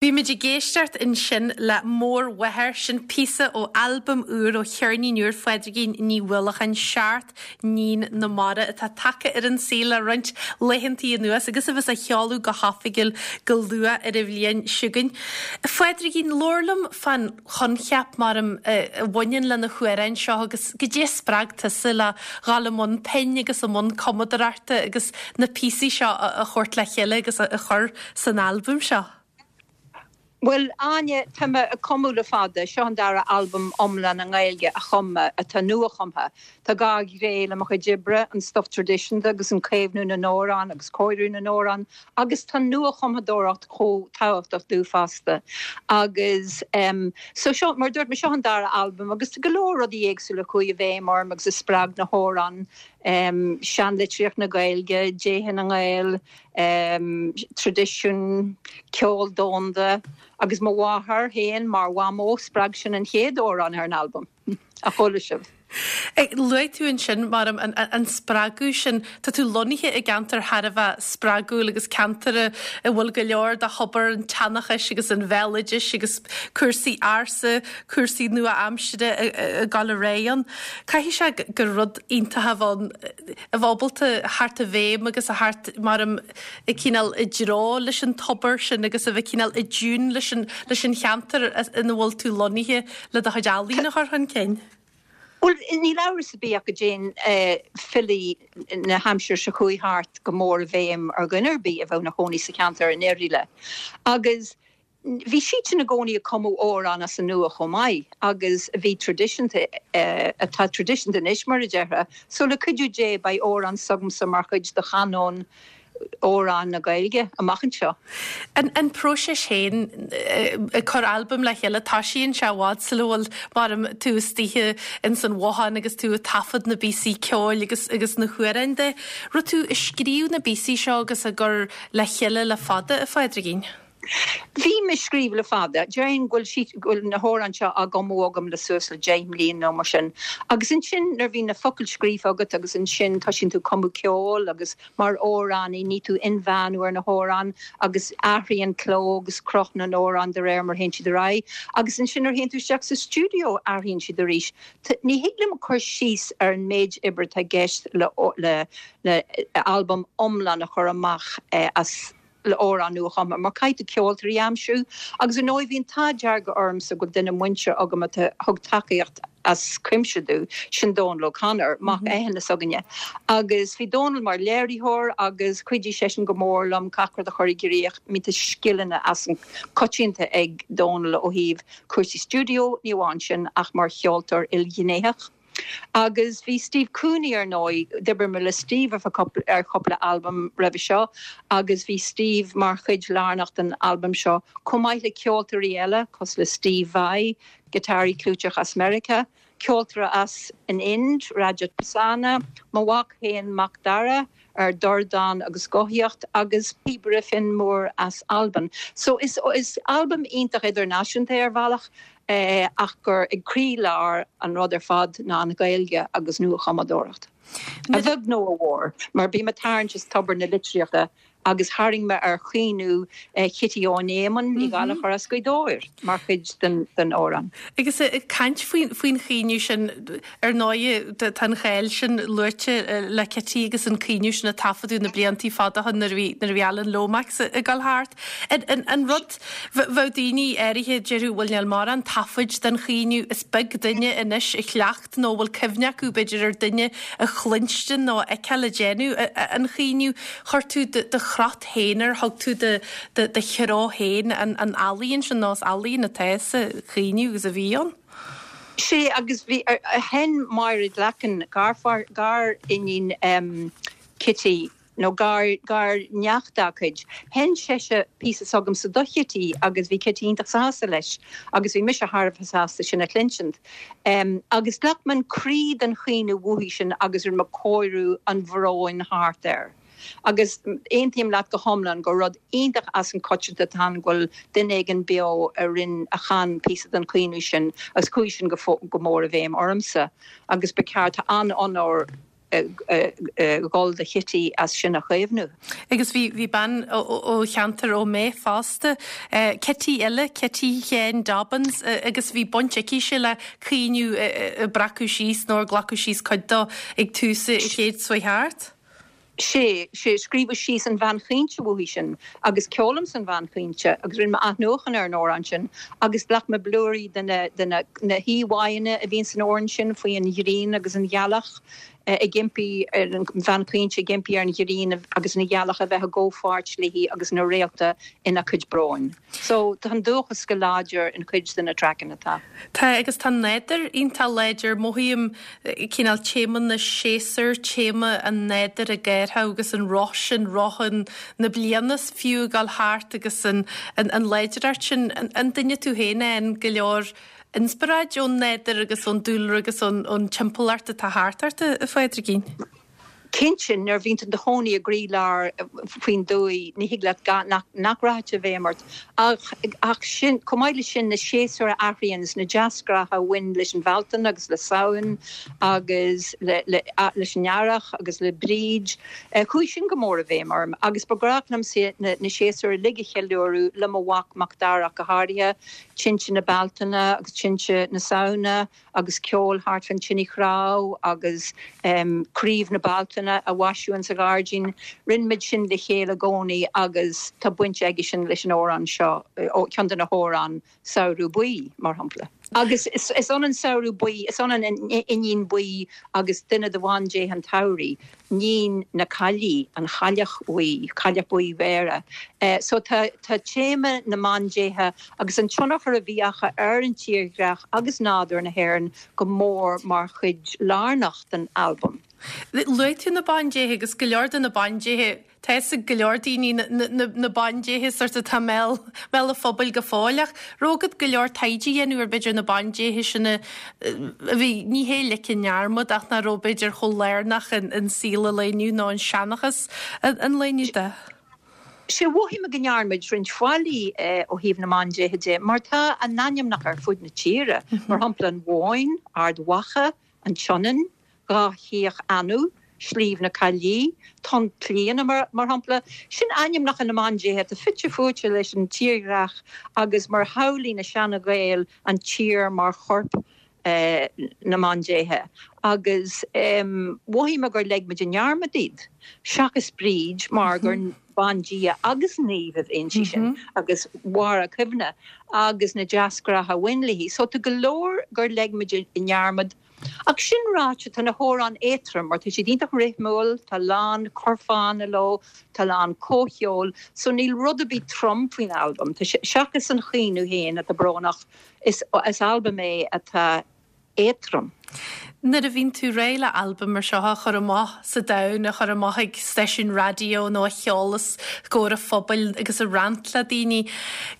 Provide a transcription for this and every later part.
Bhí muid ag éisteacht ansin le Mórmháthair, sin píosa ó albam úr, ó cheirnín úr Phádraigín Ní Uallacháin, Seacht nIníon na Mara, atá tagtha ar an saol le roinnt laethantaí anuas agus a bheas á sheoladh go hoifigiúil go luath ar an bhliain seo chugainn. A Phádraigín, labhair liom fán choincheap, maram, a bhaineann le na hamhráin seo agus goidé a spreag tusa le dhul i mbun pinn agus i mbun cumadóireachta agus na píosaí seo a thabhairt le chéile agus a chur san albam seo? Bhuel, Áine, tá mé ag cumadh le fada. Seo an dara albam iomlán i nGaeilge a chum mé, atá nuachumtha. Tá gá ghné le mo chuid oibre, an stuif traidisiúnta agus an caomhnú na n-amhrán agus cóiriú na n-amhrán, agus tá nuachumthadóireacht chomh tábhachtach domh fosta. Agus em, so seo, mar a dúirt mé, seo an dara albam agus tá go leor rudaí éagsúla a chuaigh i bhfeidhm orm agus a spreag na hamhráin, em, seanlitríocht na Gaeilge, déithe na nGael, traidisiún, ceol domhanda agus mo mháthair féin mar mhamó, spreag sin an chéad amhrán ar an albam, a chuala sibh. Luaigh tú ansin, maram, an spreagadh sin. Tá tú lonnaithe i gceantar thar a bheith spreagúil agus ceantar a bhfuil go leor de thobar an tseanchais agus an bhéaloidis agus cúrsaí ársa, cúrsaí nua-aimsire ag dul ar aghaidh ann. Caithfidh sé gur rud iontach a bheith ann. a bheith ábalta theacht i bhfeidhm agus a theacht maram i cineál i dtreo leis an tobar sin agus a bheith cineál i dtiún leis an leis an cheantar ina bhfuil tú lonnaithe le do chuid ealaíon a chur chun cinn. Bhuel, níl amhras ar bith ach go dtéann filí na haimsire seo chuaigh thart go mór i bhfeidhm ar dhuine ar bith a bheadh ina chónaí sa cheantar i ndáiríre. Agus Bhí siadsan i gcónaí ag cumadh amhrán as an nua chomh maith agus a bhí traidisiúnta, atá traidisiúnta anois mar a déarfá. So le cuidiú Dé beidh amhrán s'agamsa mar chuid de chanóin amhráin na Gaeilge amach anseo. An próiseas féin ag cur albam le chéile, toisíonn sé i bhfad sula bhfuil, maram, tú istoíche ins an bhothán agus tú ag taifead na bpíosaí ceoil agus agus na hamhráin de. Raibh tú ag scríobh na bpíosaí seo agus á gcur le chéile le fada, a Phádraigín? Bhí mé ag scríobh le fada. Déarfainn go bhfuil siad, go bhfuil na hamhráin seo á gcumadh agam le suas le 10 mbliana nó mar sin. Agus ansin nuair a bhíonn na focail scríofa agat agus ansin toisíonn tú cumadh ceoil agus mar amhránaí ní tú inmheánú ar na hamhráin agus athraíonn cló agus cruth na n-amhrán de réir mar a théann siad ar aghaidh. Agus ansin nuair a théann tú isteach sa stiúideo athraíonn siad arís. Ní thig liom cur síos ar an méid oibre atá i gceist le le le albam iomlán a chur amach as le amhráin nuachumtha mar caithfidh tú ceoltóirí a aimsiú agus ar ndóigh bhí an t-ádh dearg ormsa go bhfuil duine muinteartha agam a thug tacaíocht as cuimse domh, sin Dónal O'Connor, mac Eithne s'againne. Agus bhí Dónal mar léiritheoir agus chuidigh seisean go mór liom gach rud a chur i gcrích. I mean tá scileanna as an coitianta ag Dónal ó thaobh cúrsaí stiúideo, ní amháin sin ach mar cheoltóir ilghnéitheach. Agus bhí Steve Cooney ar ndóigh, d'oibrigh mé le Steve ar chúpla albam roimhe seo agus bhí Steve mar chuid lárnach den albam seo, chomh maith le ceoltóirí eile cosúil le Steve Vai, giotáraí clúiteach as Meiriceá, ceoltóir as an Ind, Rajat Prasanna, mo mhac féin Mac Dara ar dordán agus guthaíocht agus píobaire Finn Moore as Albain. So is albam iontach idirnáisiúnta é ar bhealach ach gur ag croílár an rud ar fad ná an Ghaeilge agus nuachumadóireacht. A bheag nó a mhór, mar bím ag tarraingt as tobar na litríochta agus tharraing mé ar chaoineadh Chití Eoghain Éamoinn Ní Ghallchóir as Gaoth Dobhair mar chuid den amhrán. Agus ag caint faoin chaoineadh sin, ar ndóigh tá an cháil sin luaite le Cití agus an caoineadh sin a taifeadadh na bliantaí fada ó shin nuair a bhí nuair a bhí Alan Lomax ag dul thart. An rud, bheadh daoine áirithe, déarfadh, bhuel níl mórán taifid den chaoineadh, is beag duine anois a chleacht nó a bhfuil cuimhne acu, b'fhéidir, ar duine a chluinstin nó a fheiceáil ag déanamh an chaoineadh. Chuir tú do chrot féin air, thug tú do threo féin an ealaíon sin, nó is ealaíon atá sa chaoineadh agus a bhí ann. Sea, agus bhí, sheinn Máire Glackin, gar-iníon Chití, nó gar, gar-neacht dá cuid. Sheinn sise píosa s'agamsa do Chití agus bhí Cití iontach sásta leis agus bhí mise thar a bheith sásta sin a chluinsint. Agus ghlac mé an croí den chaoineadh uaithi sin agus rinne mé cóiriú an bhróin thart air. Agus aontaím leat go hiomlán gur rud iontach as an coitianta atá ann go bhfuil duine éigin beo a rinn, a chan píosa den chaoineadh sin agus chuaigh sin go, go mór i bhfeidhm ormsa agus ba cheart, tá an-onóir. dhul do Chití as sin a chaomhnú. Agus bhí, bhí bean ó cheantar Ó Méith fosta, Cití eile, Cití Sheáin Dobbins, agus bhí baint aicise le caoineadh a breacadh síos nó ar glacadh síos cuid dó ag tús an chéid seo chuaigh thart. Sé, sé, scríobhadh síos an Bhean Chaointe uaithi sin agus ceolaimse an Bhean Chaointe agus rinne mé athnuachan ar an amhrán sin agus ghlac mé blúirí de na, de na, na híomháanna a bhíonn san amhrán sin faoi an ghrian agus an ghealach ag impí ar an Bhean Chaointe ag impí ar an ghrian agus an ghealach a bheith i gcomhpháirt léi agus na réalta ina cuid bróin. So, tá an dúchas go láidir in cuid de na traiceanna atá. Tá, agus tá an nádúr iontach láidir. Mothaím cineál téama na séasúr, téama an nádúir ag athrú agus an roth sin, roth an, na bliana fiú ag dul thart agus an, an, an láidreacht sin. An duine tú féin a fhaigheann go leor inspioráid ón nádúr agus ón dúlra agus ón, ón timpeallacht atá thart ort, a Phádraigín? Cinnte, nuair a bhíonn tú i do chónaí i gcroílár faoin dtuaith, ní thig leat gan, nach, nach rachadh i bhfeidhm ort. Ach, ach sin, chomh maith leis sin, na séasúir a athraíonn is na deasghnátha a bhain leis an Bhealtaine agus le Samhain agus le, le, leis an Earrach agus le Bríd, chuaigh sin go mór i bhfeidhm orm. Agus ba ghnách liomsa na, na séasúir uilig a cheiliúradh le mo mhac, Macdara ach go háirithe, tinte na Bealtaine agus tinte na Samhna. agus ceol thart fán tine chnámh agus craobh na Bealtaine a mhaisiú insa ghairdín. Rinne muid sin le chéile i gcónaí agus tá baint aige sin leis an amhrán seo, ceann de na hamhráin, Samhradh Buí, mar shampla. Agus is ionann Samhradh Buí, is ionann an Iníon Buí agus duine de bhandéithe an tsamhraidh. Níon na Caillí, an Chailleach Bhuí, Cailleach Bhuí Bhéarra. So tá tá téama na mbandéithe agus an tionchar a bhí acu ar an tírdhreach agus nádúr na hÉireann go mór mar chuid lárnach den albam. Luaigh tú na bandéithe agus go leor de na bandéithe, tá fhios ag go leor daoine na bandéithe sort atá i mbéal an phobail go fóill ach raibh agat go leor taighde a dhéanamh ar b'fhéidir na bandéithe sin a bhí, ní hé ligthe i ndearmad ach nach raibh b'fhéidir chomh lárnach in saol an lae inniu nó in seanchas an lae inniu de. Sea, mhothaigh mé go ndearna muid roinnt faillí ó thaobh na mbandéithe de mar tá a n-ainmneacha ar fud na tíre, mar shampla an Bhóinn, Ard Mhacha, an tSionainn, Dhá Chríoch Anú, Sliabh na Caillí, Tonn Clíodhna, mar shampla. Sin ainmneacha na mbandéithe atá fite fuaite leis an tírdhreach agus mar shamhlaigh na seana-Ghaeil an tír mar chorp na mbandéithe. Agus mhothaigh mé gur leig muid i ndearmad iad, seachas Bríd mar gur bandia agus naomh a bhí inti sin agus mhair a cuimhne agus na deasghnátha a bhain léi. So tá go leor gur leig muid i ndearmad. Ach sin ráite, tá na hamhráin éadtrom mar tá siad iontach rithmiúil, tá a lán curfánna leo, tá a lán comhcheoil, so níl rud ar bith trom faoin albam. Tá sé, seachas an chaoineadh féin atá brónach, is albam é atá éadtrom. Nuair a bhíonn tú réidh le albam mar seo a chur amach sa domhan, a chur amach ag stáisiún raidió nó a cheol os comhair an phobail agus a roinnt le daoine,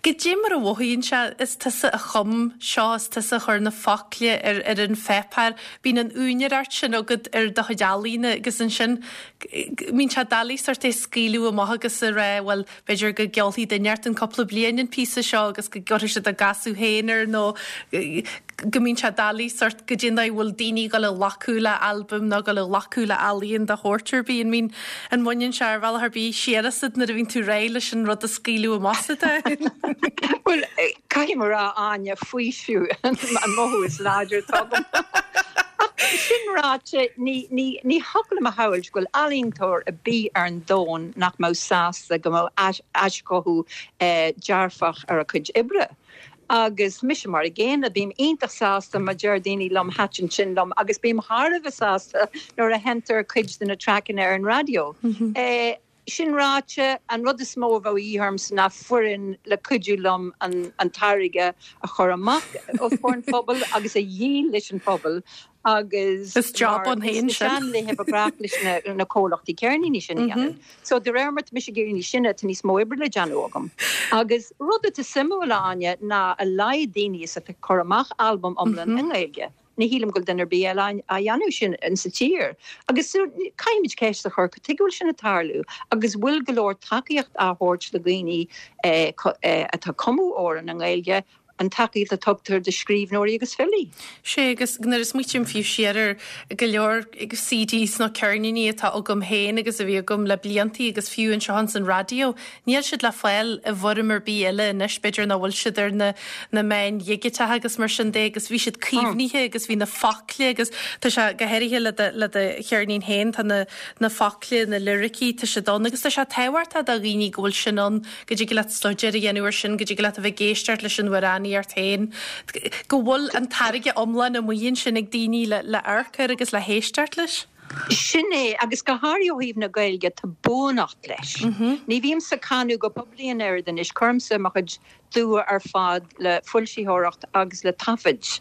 goidé mar a mhothaíonn sé, is tusa a chum seo, is tusa a chuir na focla ar ar an pháipéar, bíonn an úinéireacht sin agat ar do chuid ealaíne agus ansin bíonn sé doiligh sort é scaoileadh amach agus a rá bhuel b'fhéidir go gceolfaidh duine inteacht cúpla bliain an píosa seo agus go gcuirfidh siad a gcasadh féin air nó go mbíonn sé doiligh sort goidé an dóigh a bhfuil daoine ag dul a ghlacadh le albam nó ag dul a ghlacadh le ealaíon de shórt ar bith. An mbíonn, an mbaineann sé ar bhealach ar bith siar asat nuair a bhíonn tú réidh leis an rud a scaoileadh amach sa domhan? Bhuel, caithfidh mé a rá, Áine, faoiseamh an mothú is láidre atá agam. Ach sin ráite, ní, ní, ní thiocfadh liom a shamhailt go bhfuil ealaíontóir ar bith ar an domhan nach mbeadh sásta go mbeadh aischothú dearfach ar a cuid oibre. Agus mise mar an gcéanna, bím iontach sásta má deir daoine liom thaitin sin liom agus bím thar a bheith sásta nuair a sheinntear cuid de na traiceanna ar an raidió. Sin ráite, an rud is mó a bheadh a dhíth ormsa ná foireann le cuidiú liom an táirge a chur amach os comhair an phobail agus a dhíol leis an phobal agus Is job ann féin sin. Sna seanlaethe ba ghnách leis na comhlachtaí ceirníní sin a dhéanamh. So de réir mar tá mise ag éirí níos sine tá níos mó oibre le déanamh agam. Agus rud atá suimiúil, a Áine, ná a laghad daoine is atá ag cur amach albam iomlán i nGaeilge. Ní shílim go bhfuil duine ar bith eile á dhéanamh sin insa tír. Agus so caithfimid ceist a chur, cad tuige a bhfuil sin ag tarlú agus bhfuil go leor tacaíocht á thabhairt do dhaoine atá ag cumadh amhrán i nGaeilge? an tacaíocht a tugtar do scríbhneoirí agus filí. Sea, agus nuair a smaoitím fiú siar ar go leor CDs nó ceirníní atá agam féin agus a bhí agam le bliantaí agus fiú anseo ins an raidió, níl siad le fáil i bhfoirm ar bith eile anois, b'fhéidir nach bhfuil siad ar na na meáin dhigiteacha agus mar sin de agus bhí siad caomhnaithe agus bhí na focla agus tá sé go háirithe le do le do cheirnín féin, tá na na focla, na liricí, tá siad ann agus tá sé tábhachtach do dhaoine go bhfuil sin ann. go dtig leat staidéar a dhéanamh air sin, go dtig leat a bheith ag éisteacht leis an amhránaíocht féin, go bhfuil an táirge iomlán amuigh ansin ag daoine le le amharc air agus le héisteacht leis. Sin é, agus go háirithe ó thaobh na Gaeilge, tá buanacht leis. Ní bhímse ag canadh go poiblí an oiread anois, cuirimse mo chuid dua ar fad le foilsitheoireacht agus le taifid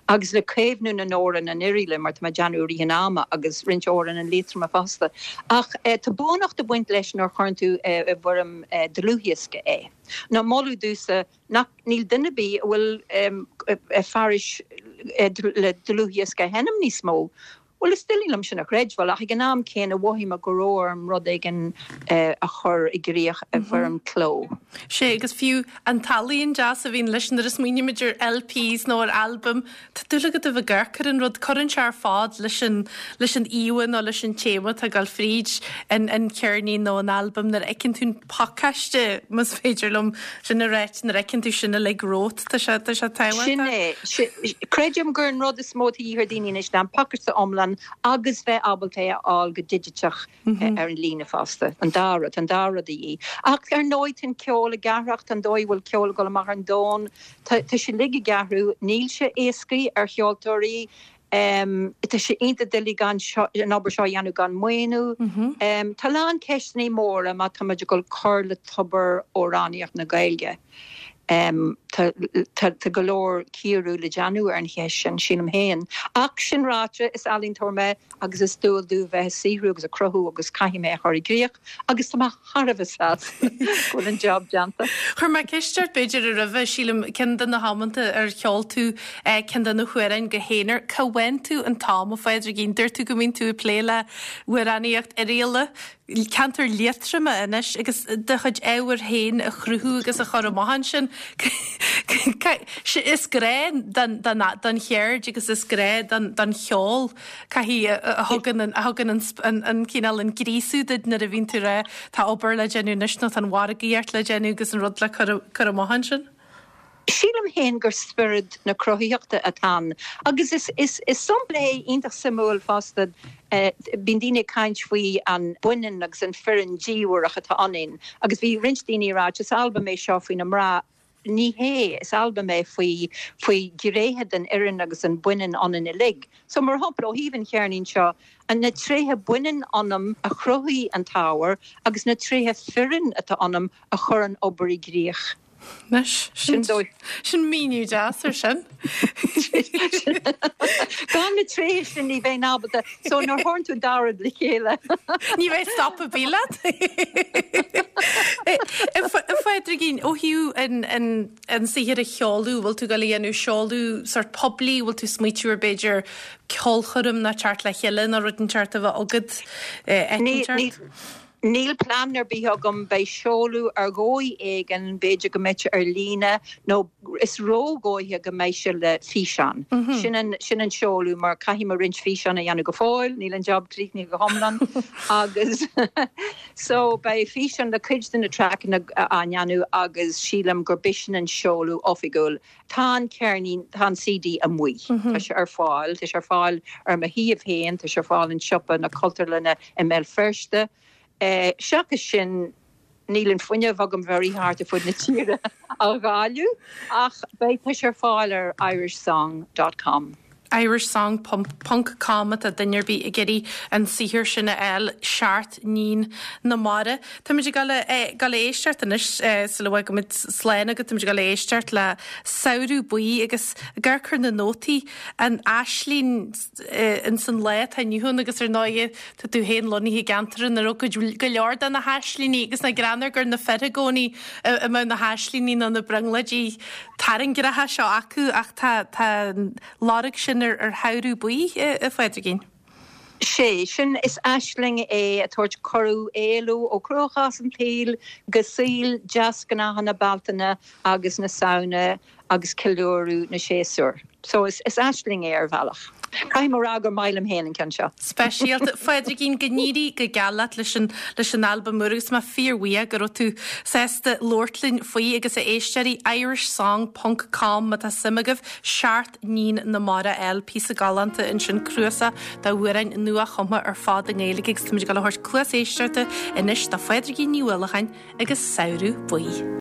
agus le caomhnú na n-amhrán in Oiriaila mar tá mé ag déanamh i rith an ama agus roinnt amhrán in Liatroma fosta. Ach tá buanacht ag baint leis nuair a chuireann tú i bhfoirm dlúthdhiosca é. Nó moladh domhsa nach níl duine ar bith a bhfuil fearais le dlúthdhiosca a sheinm níos mó. Bhuel, is doiligh liom sin a chreidbheáil, ach ag an am céanna mhothaigh mé go raibh orm rud éigin a chur i gcrích i bhfoirm cló. Sea, agus fiú an t-ealaíon deas a bhíonn leis nuair a smaoinímid ar LPs nó ar albaim, tá dúil agat a bheith ag amharc ar an rud, cuireann sé ar fad leis an, leis an íomha nó leis an téama atá ag dul fríd an, an cheirnín nó an albam nuair a fheiceann tú an pacáiste, más féidir liom sin a ráit, nuair a fheiceann tú sin uilig romhat, tá sé, tá sé tábhachtach. Sin é. Creidim gur an rud is mó atá de dhíth ar daoine anois ná an pacáiste iomlán agus bheith ábalta é a fháil go digiteach ar an líne fosta. An dá rud, tá an dá rud de dhíth. Ach ar ndóigh tá an ceol ag athrach, tá an dóigh a bhfuil ceol ag dul amach ar an domhan, tá, tá sé uilig ag athrú. Níl sé éascaí ar cheoltóirí. Tá sé iontach doiligh gan an obair seo a dhéanamh gan maoiniú. Tá a lán ceisteanna móra má táimid ag dul cur le tobar amhránaíocht na Gaeilge. Tá go leor cíoradh le déanamh ar an cheist sin, sílim féin. Ach sin ráite, is ealaíontóir mé agus is dual domh bheith ag saothrú agus ag cruthú agus caithfidh mé a chur i gcrích agus tá mé thar a bheith sásta go bhfuil an job déanta. Chuir mé ceist ort b'fhéidir roimhe, sílim, ceann de na hamanta ar cheol tú ceann de na hamhráin go haonar. Cá bhfaigheann tú an t-am, a Phádraigín? Dúirt tú go mbíonn tú ag plé le hamhránaíocht Oirialla, ceantar Liatroma anois agus do chuid ábhair féin a chruthú agus a chur amach ansin. Is grá don cheird agus is grá don cheol caithfidh a thugann a thugann an cineál an gríosú duit nuair a bhíonn tú ag rá tá obair le déanamh anois nó tá an mhargaíocht le déanamh agus an rud le cur amach ansin. Sílim féin gur spiorad na cruthaitheachta atá ann agus is is is sampla é iontach suimiúil fosta. Bíonn daoine ag caint faoi an baineann agus an fireann diamhrach atá ionainn agus bhí roinnt daoine ag ráit is albam é seo faoi na mná. Ní hé, is albam é faoi faoi ghnéithe den fhireann agus an baineann ionainn uilig. So mar shampla ó thaobh an cheirnín seo, na tréithe baineann ionam a chruthaigh an t-ábhar agus na tréithe fireann atá ionam a chuir an obair i gcrích. Anois, sin dóigh. Sin míniú deas ar sin. Gan na tréithe sin ní bheinn ábalta, so nuair a chuireann tú an dá rud le chéile. Ní bheidh stop ar bith leat. A Phádraigín, ó thaobh an saothar a sheoladh, bhfuil tú ag dul a dhéanamh seoladh sórt poiblí, bhfuil tú ag smaoitiú ar b'fhéidir ceolchoirm nó teacht le chéile nó rud inteacht a bheith agat, eicínt ort? Níl plean ar bith agam, beidh seoladh ar dhóigh éigin, b'fhéidir go mbeidh sé ar líne nó is ródhóiche go mbeidh sé le físeán. Sin an, sin an seoladh mar caithfidh mé roinnt físeán a dhéanamh go fóill, níl an job críochnaithe go hiomlán agus so beidh físeán le cuid de na traiceanna á ndéanamh agus sílim gur b'shin an seoladh oifigiúil. Tá an ceirnín, tá an CD amuigh. Tá sé ar fáil. Tá sé ar fáil ar mo shuíomh féin, tá sé ar fáil in siopa na Cultúrlainne i mBéal Feirste. Seachas sin, níl an fuinneamh agam bheith ag rith thart ar fud na tíre á dháileadh, ach beidh, tá sé ar fáil ar irishsong dot com. Irishsong ponc com má tá duine ar bith ag iarraidh an saothar sin a fháil, Seacht nIníon na Mara. Táimid ag dul a dul a éisteacht anois sula bhfágaimid slán agat, táimid ag dul a éisteacht le Samhradh Buí agus ag amharc ar na nótaí, an aisling ins an lá atá inniu ann agus ar ndóighe tá tú féin lonnaithe i gceantar ina raibh go leor de na haislingí agus nach greannmhar gur na fir i gcónaí a mbeadh na haislingí nó na brionglóidí tairngreacha seo acu ach tá tá an lorg sin ar ar Shamhradh Buí, a Phádraigín. Sé sin, is aisling é ag tabhairt cuireadh éalú ó chruachás an tsaoil go saol deasghnátha na Bealtaine agus na Samhna. agus ceiliúradh na séasúr. So is aisling é ar bhealach. Caithfidh mé a rá gur maith liom féin an ceann seo. Speisialta. Phádraigín, go n-éirí go geal leat leis an leis an albam úr agus mé fíorbhuíoch go raibh tú sásta labhairt linn faoi agus a éisteoirí, irishsong ponc com má tá suim agaibh, Seacht nIníon na Mara a fháil, píosa galánta ansin, cnuasach d'amhráin nua-chumtha ar fad i nGaeilge agus táimid ag dul a thabhairt cluas éisteachta anois do Phádraigín Ní Uallacháin agus Samhradh Buí.